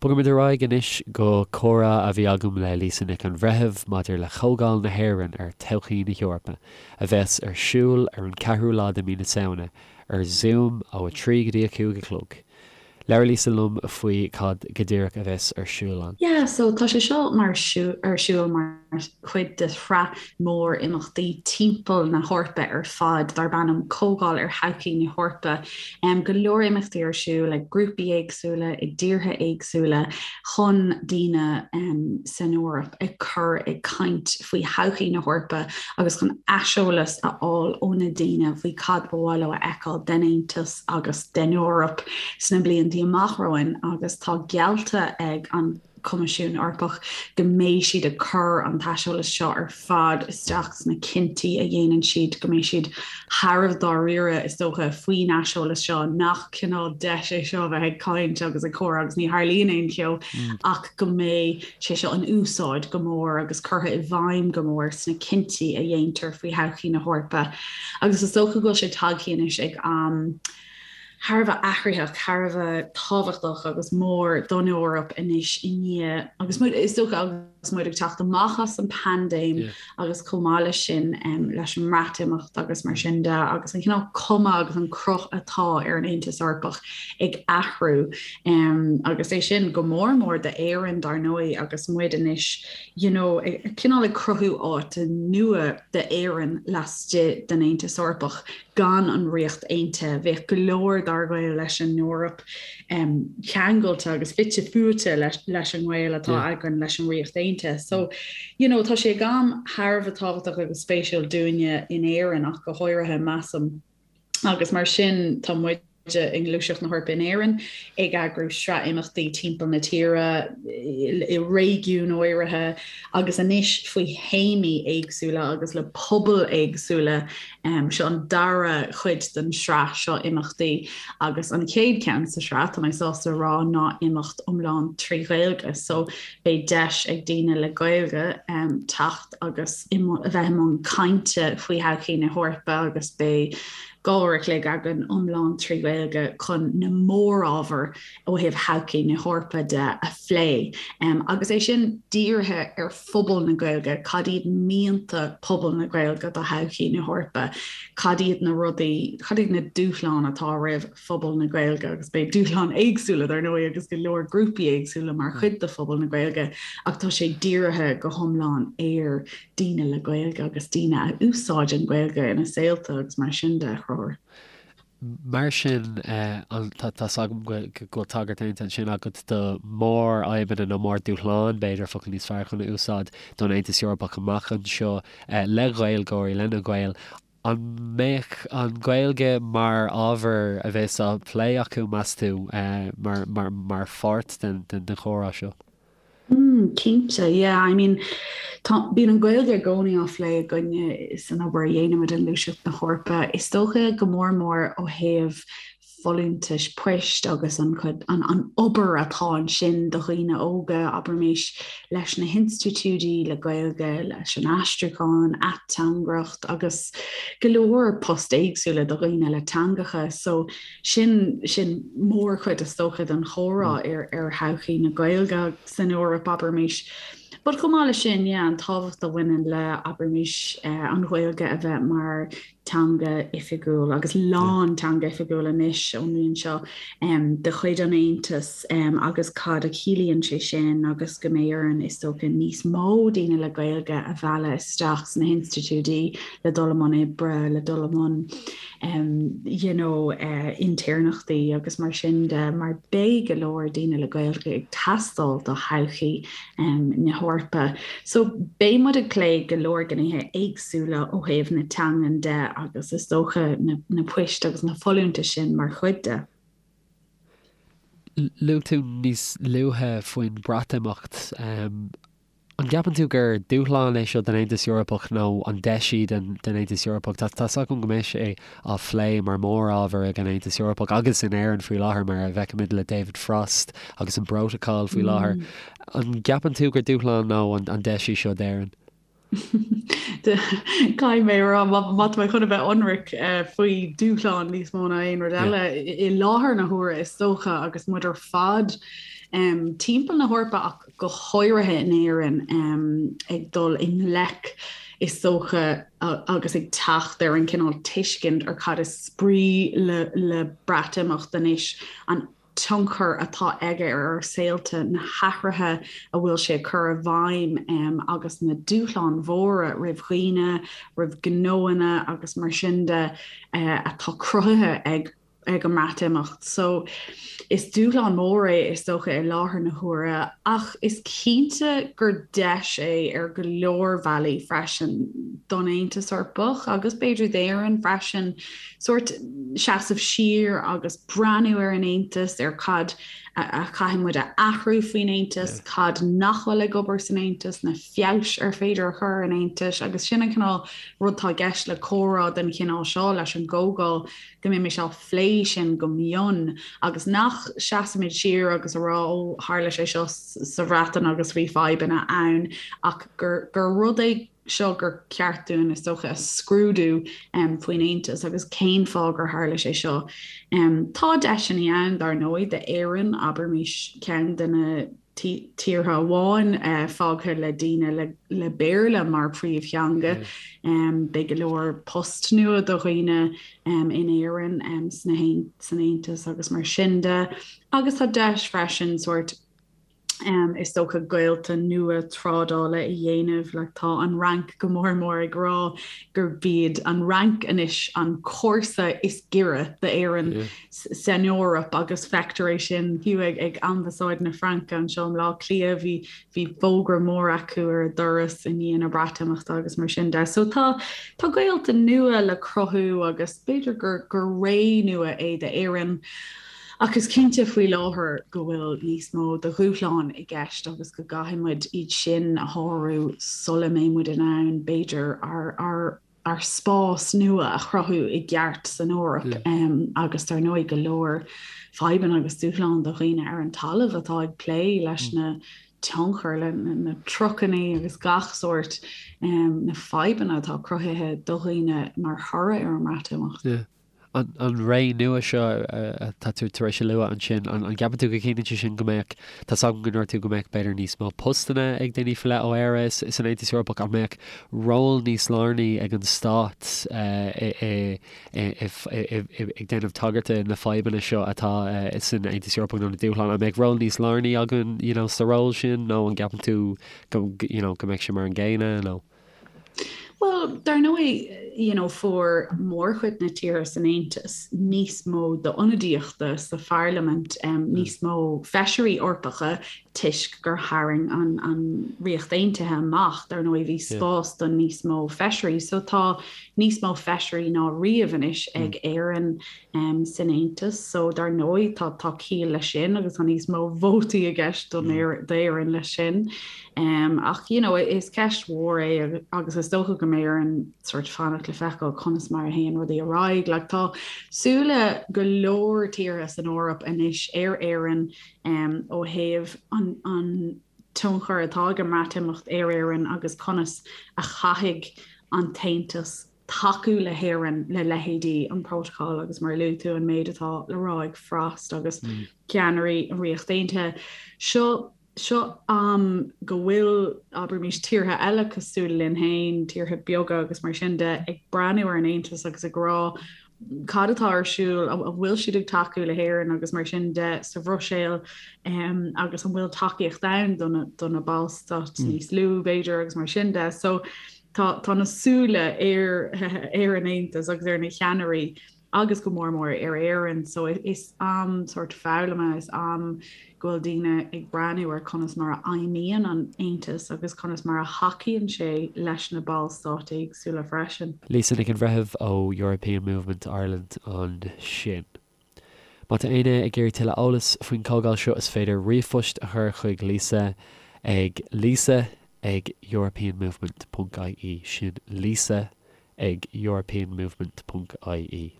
Bogaimid ar aghaidh anois go comhrá a bhí agam le Lisa Nic an Bhreithimh maidir le Comhdháil na hÉireann ar Thodhchaí na hEorpa, a bheas ar siúl ar an 4ú lá de mhí na Samhna, ar Zoom ó 3 go dtí 5 a chlog. Labhair Lisa liom faoi cad go díreach a bheas ar siúl ann. Yeah, so tá sé seo mar ar siúl mar chuid de shraith mór imeachtaí timpeall na hEorpa ar fad darb ainm Comhdháil ar Thodhchaí na hEorpa. Go leor imeachtaí ar siúl ag grúpaí éagsúla i dtíortha éagsúla chun daoine san Eoraip a chur ag caint faoi thodhchaí na hEorpa agus chun aiseolas a fháil ó na daoine faoi cad ba mhaith leo a fheiceáil den Aontas agus den Eoraip sna blianta amach romhainn agus tá geallta ag an Coimisiún Eorpach go mbeidh siad ag cur an t-aiseolas seo ar fad isteach sna cinntí a dhéanann siad, go mbeidh siad thar a bheith dáiríre, is dócha, faoin aiseolas seo, nach cineál deis é seo a bheith ag caint agus ag comhrá agus ní tharlaíonn aon cheo, ach go mbeidh sé seo in úsáid go mór agus curtha i bhfeidhm go mór sna cinntí a dhéantar faoi thodhchaí na hEorpa. Agus is dócha go bhfuil sé tagtha anois ag am thar a bheith athraitheach, thar a bheith tábhachtach agus mór don Eoraip anois i ndiaidh, agus muid, is dócha, agus muid ag teacht amach as an bpaindéim agus chomh maith leis sin leis an mBreatimeacht agus mar sin de agus an cineál cuma agus an cruth atá ar an Aontas Eorpach ag athrú agus é sin go mór mór d'Éirinn dar ndóigh agus muid anois you know cineál ag cruthú áit nua d'Éirinn laistigh den Aontas Eorpach. Gan an Ríocht Aontaithe, bheadh go leor dár ghaol leis an Eoraip ceangailte agus fite fuaite leis an ngaol atá againn leis an Ríocht Aontaithe. So, you know, tá sé ag am thar a bheith tábhachtach agus spéisiúil dúinne in Éirinn ach go háirithe, measaim. Agus mar sin, tá muid i nGluaiseacht na hEorpa in Éirinn ag eagrú sraith imeachtaí timpeall na tíre, i réigiúin áirithe agus anois faoi théamaí éagsúla agus le pobail éagsúla. Seo an dara cuid den sraith seo imeachtaí agus an chéad cheann sa sraith, tá mé sásta a rá, ná imeacht iomlán trí Ghaeilge. So beidh deis ag daoine le Gaeilge teacht agus a bheith i mbun cainte faoi thodhchaí na hEorpa agus beidh 2 uair a chloig againn iomlán trí Ghaeilge chun na mórábhair ó thaobh thodhchaí na hEorpa de a phlé. Agus é sin dírithe ar phobal na Gaeilge, cad iad mianta phobal na Gaeilge do thodhchaí na hEorpa, cad iad na rudaí, cad iad na dúshláin atá roimh phobal na Gaeilge, agus beidh dúshláin éagsúla dar ndóigh agus go leor grúpaí éagsúla mar chuid de phobal na Gaeilge, ach tá sé dírithe go hiomlán ar daoine le Gaeilge agus daoine a úsáideann Gaeilge ina saolta agus mar sin de, a Chonchúir. Mar sin, tá's agam go bhfuil tagairt déanta ansin agat do mhórfhadhbanna nó mórdhúshláin, b'fhéidir, focal níos fearr chun a úsáid, don Aontas Eorpach amach anseo le Gaeilgeoirí, le na Gaeil. An mbeidh an Ghaeilge mar ábhar a bheas á phlé acu, meas tú, mar pháirt den chomhrá seo? Mm, cinnte, yeah. I mean, tá, bíonn an Ghaeilge i gcónaí á phlé againne san obair a dhéanaimid i nGluaiseacht na hEorpa. Is dócha go mór mór ó thaobh folúntais poist agus an chuid, an, an obair atá ansin do dhaoine óga, abraimis, leis na hinstitiúidí le Gaeilge, leis an aistriúchán, ateangaireacht agus go leor post éagsúla do dhaoine le teangacha. So, Sin, sin mórchuid is dócha den chomhrá ar, ar thodhchaí na Gaeilge san Eoraip, abraimis. But chomh maith leis sin, yeah, an tábhacht a bhaineann le, abraimis, an Ghaeilge a bheith mar teanga oifigiúil agus lán teanga oifigiúil anois ón mbliain seo de chuid an Aontais agus cad a chiallaíonn sé sin agus go mbeidh orainn, is dócha, níos mó daoine le Gaeilge a mhealladh isteach sna hinstitiúidí le dul i mbun oibre, le dul i mbun you know intéirneachtaí agus mar sin de mar beidh go leor daoine le Gaeilge ag teastáil do thodhchaí na hEorpa. So beidh muid ag plé go leor gnéithe éagsúla ó thaobh na teangan de agus is dócha na, na poist agus na folúntais sin mar chuid de. Luaigh tú níos luaithe faoin Bhreatimeacht. An gceapann tú gur dúshlán é seo don Aontas Eorpach nó an deis í don Aontas Eorpach? Tá's agam go mbeidh sé á phlé mar mhórábhar ag an Aontas Eorpach agus in Éirinn faoi láthair mar a bhfeicimid le David Frost agus an bPrótacal faoi láthair. An gceapann tú gur dúshlán nó an deis í seo d'Éirinn? Caithfidh mé a rá, má tá mé chun a bheith ionraic faoi dúshlán níos mó ná aon rud eile i láthair na huaire is dócha agus muid ar fad. timpeall na hEorpa ach go háirithe in Éirinn ag dul i ngleic is dócha agus ag teacht ar an cineál tuiscint ar cad is brí le le Breatimeacht anois, an tionchar atá aige ar ár saolta, na hathruithe a bhfuil sé ag cur i bhfeidhm agus na dúshláin mhóra roimh dhaoine, roimh ghnóanna agus mar sin de atá cruthaithe ag ag an mBreatimeacht. So is dúshlán mór é is dócha i láthair na huaire ach is cinnte gur deis é ar go leor bealaí freisin don Aontas Eorpach agus b'fhéidir d'Éirinn freisin sórt seasamh siar agus breathnú ar an Aontas, ar cad a chaithfidh muid a athrú faoin Aontas, cad nach bhfuil ag obair san Aontas, na feabhais ar féidir a chur ar an Aontas agus sin an cineál rud atá i gceist le comhrá den chineál seo leis an gcomhdháil go mbeimis á phlé sin go mion agus nach seasaimid siar agus a rá ó tharla sé seo sa Bhreatain agus bhí fadhbanna ann ach gur gur rud é seo gur ceart dúinn is dócha a scrúdú faoin Aontas agus cén fáth gur tharla sé seo. Tá deiseanna ann dar ndóigh d'Éirinn, abraimis ceann de na tíortha amháin fágtha le daoine le Béarla mar phríomhtheanga. Beidh go leor post nua do dhaoine in Éirinn san Aontas agus mar sin de. Agus tá deis freisin sórt is dócha gaolta nua trádála a dhéanamh. Like tá an Fhrainc go mór mór ag rá gurb iad an Fhrainc anois an comharsa is giorra d'Éirinn san Eoraip agus feictear é sin fiú ag ag Ambasáid na Fraince anseo i mBleá Cliath bhí bhí fógra mór acu ar a doras i ndiaidh na Breatimeachta agus mar sin de. So tá tá gaolta nua le cruthú agus b'fhéidir gur gur ré nua é d'Éirinn. Ach is cinnte faoi láthair go bhfuil níos mó de dhúshláin i gceist agus go gcaithfidh muid iad sin a shárú sula mbeidh muid in ann b'fhéidir ár ár ár spás nua a chruthú i gceart san Eoraip agus dar ndóigh go leor fadhbanna agus dúshlán do dhaoine ar an talamh atá ag plé leis na tionchair, le na trucailí agus gach sórt na fadhbanna atá cruthaithe do dhaoine mar thoradh ar an mBreatimeacht. An ré nua seo atá tú tar éis a lua ansin, an gceapann tú go gciallaíonn sé sin go mbeadh, tá 's agam go ndúirt tú go mbeadh b'fhéidir níos mó postanna ag daoine faoi leith ó Éire san Aontas Eorpach, an mbeadh ról níos lárnaí ag an stát ag déanamh tagairt na fadhbanna seo atá san Aontas Eorpach nó na dúshláin, an mbeadh ról níos lárnaí againn you know sa ról sin nó an gceapann tú go you know go mbeadh sé mar an gcéanna nó? Bhuel, dar ndóigh, you know, fuair mórchuid na tíortha san Aontas níos mó d'ionadaíochta sa pharlaimint, níos mó feisirí Eorpacha toisc gur tharraing an, an Ríocht Aontaithe amach, dar ndóigh bhí spás do níos mó feisirí. So tá níos mó feisirí ná riamh anois ag Éirinn san Aontas. So dar ndóigh tá, tá ciall leis sin agus tá níos mó vótaí i gceist d'Éirinn leis sin. Ach you know is ceist mhór é agus is dócha go mbeidh orainn sort fanacht le feiceáil conas mar a théann rudaí ar aghaidh. Like tá súile go leor tíortha san Eoraip anois ar Éirinn ó thaobh an an tionchar atá ag an mBreatimeacht ar Éirinn agus conas a chaithfidh an tAontas tacú le hÉirinn le leithéidí an Protocol agus mar a luaigh tú an méid atá le rá ag Frost agus ceannairí an Ríocht Aontaithe. Seo Seo am go bhfuil, abraimis, tíortha eile cosúil linn féin, tíortha beaga agus mar sin de, ag breathnú ar an Aontas agus ag rá cad atá ar siúl, an bhfuil siad ag tacú le hÉirinn agus mar sin de sa Bhruiséil agus an bhfuil tacaíocht ann do na, do na ballstáit níos lú b'fhéidir agus mar sin de. So tá, tá na súile ar, ar an Aontas agus ar na ceannairí agus go mór mór ar Éirinn. So is am sórt foghlama, is am go bhfuil daoine ag breathnú ar conas mar a fheidhmíonn an Aontas agus conas mar a thacaíonn sé leis na ballstáit éagsúla freisin. Lisa Nic an Bhreithimh ó European Movement Ireland ansin. Má tá éinne ag iarraidh tuilleadh eolais faoin chomhdháil seo is féidir ríomhphost a chur chuig Lisa ag lisa ag europeanmovement ponc ie sin lisa ag europeanmovement ponc ie.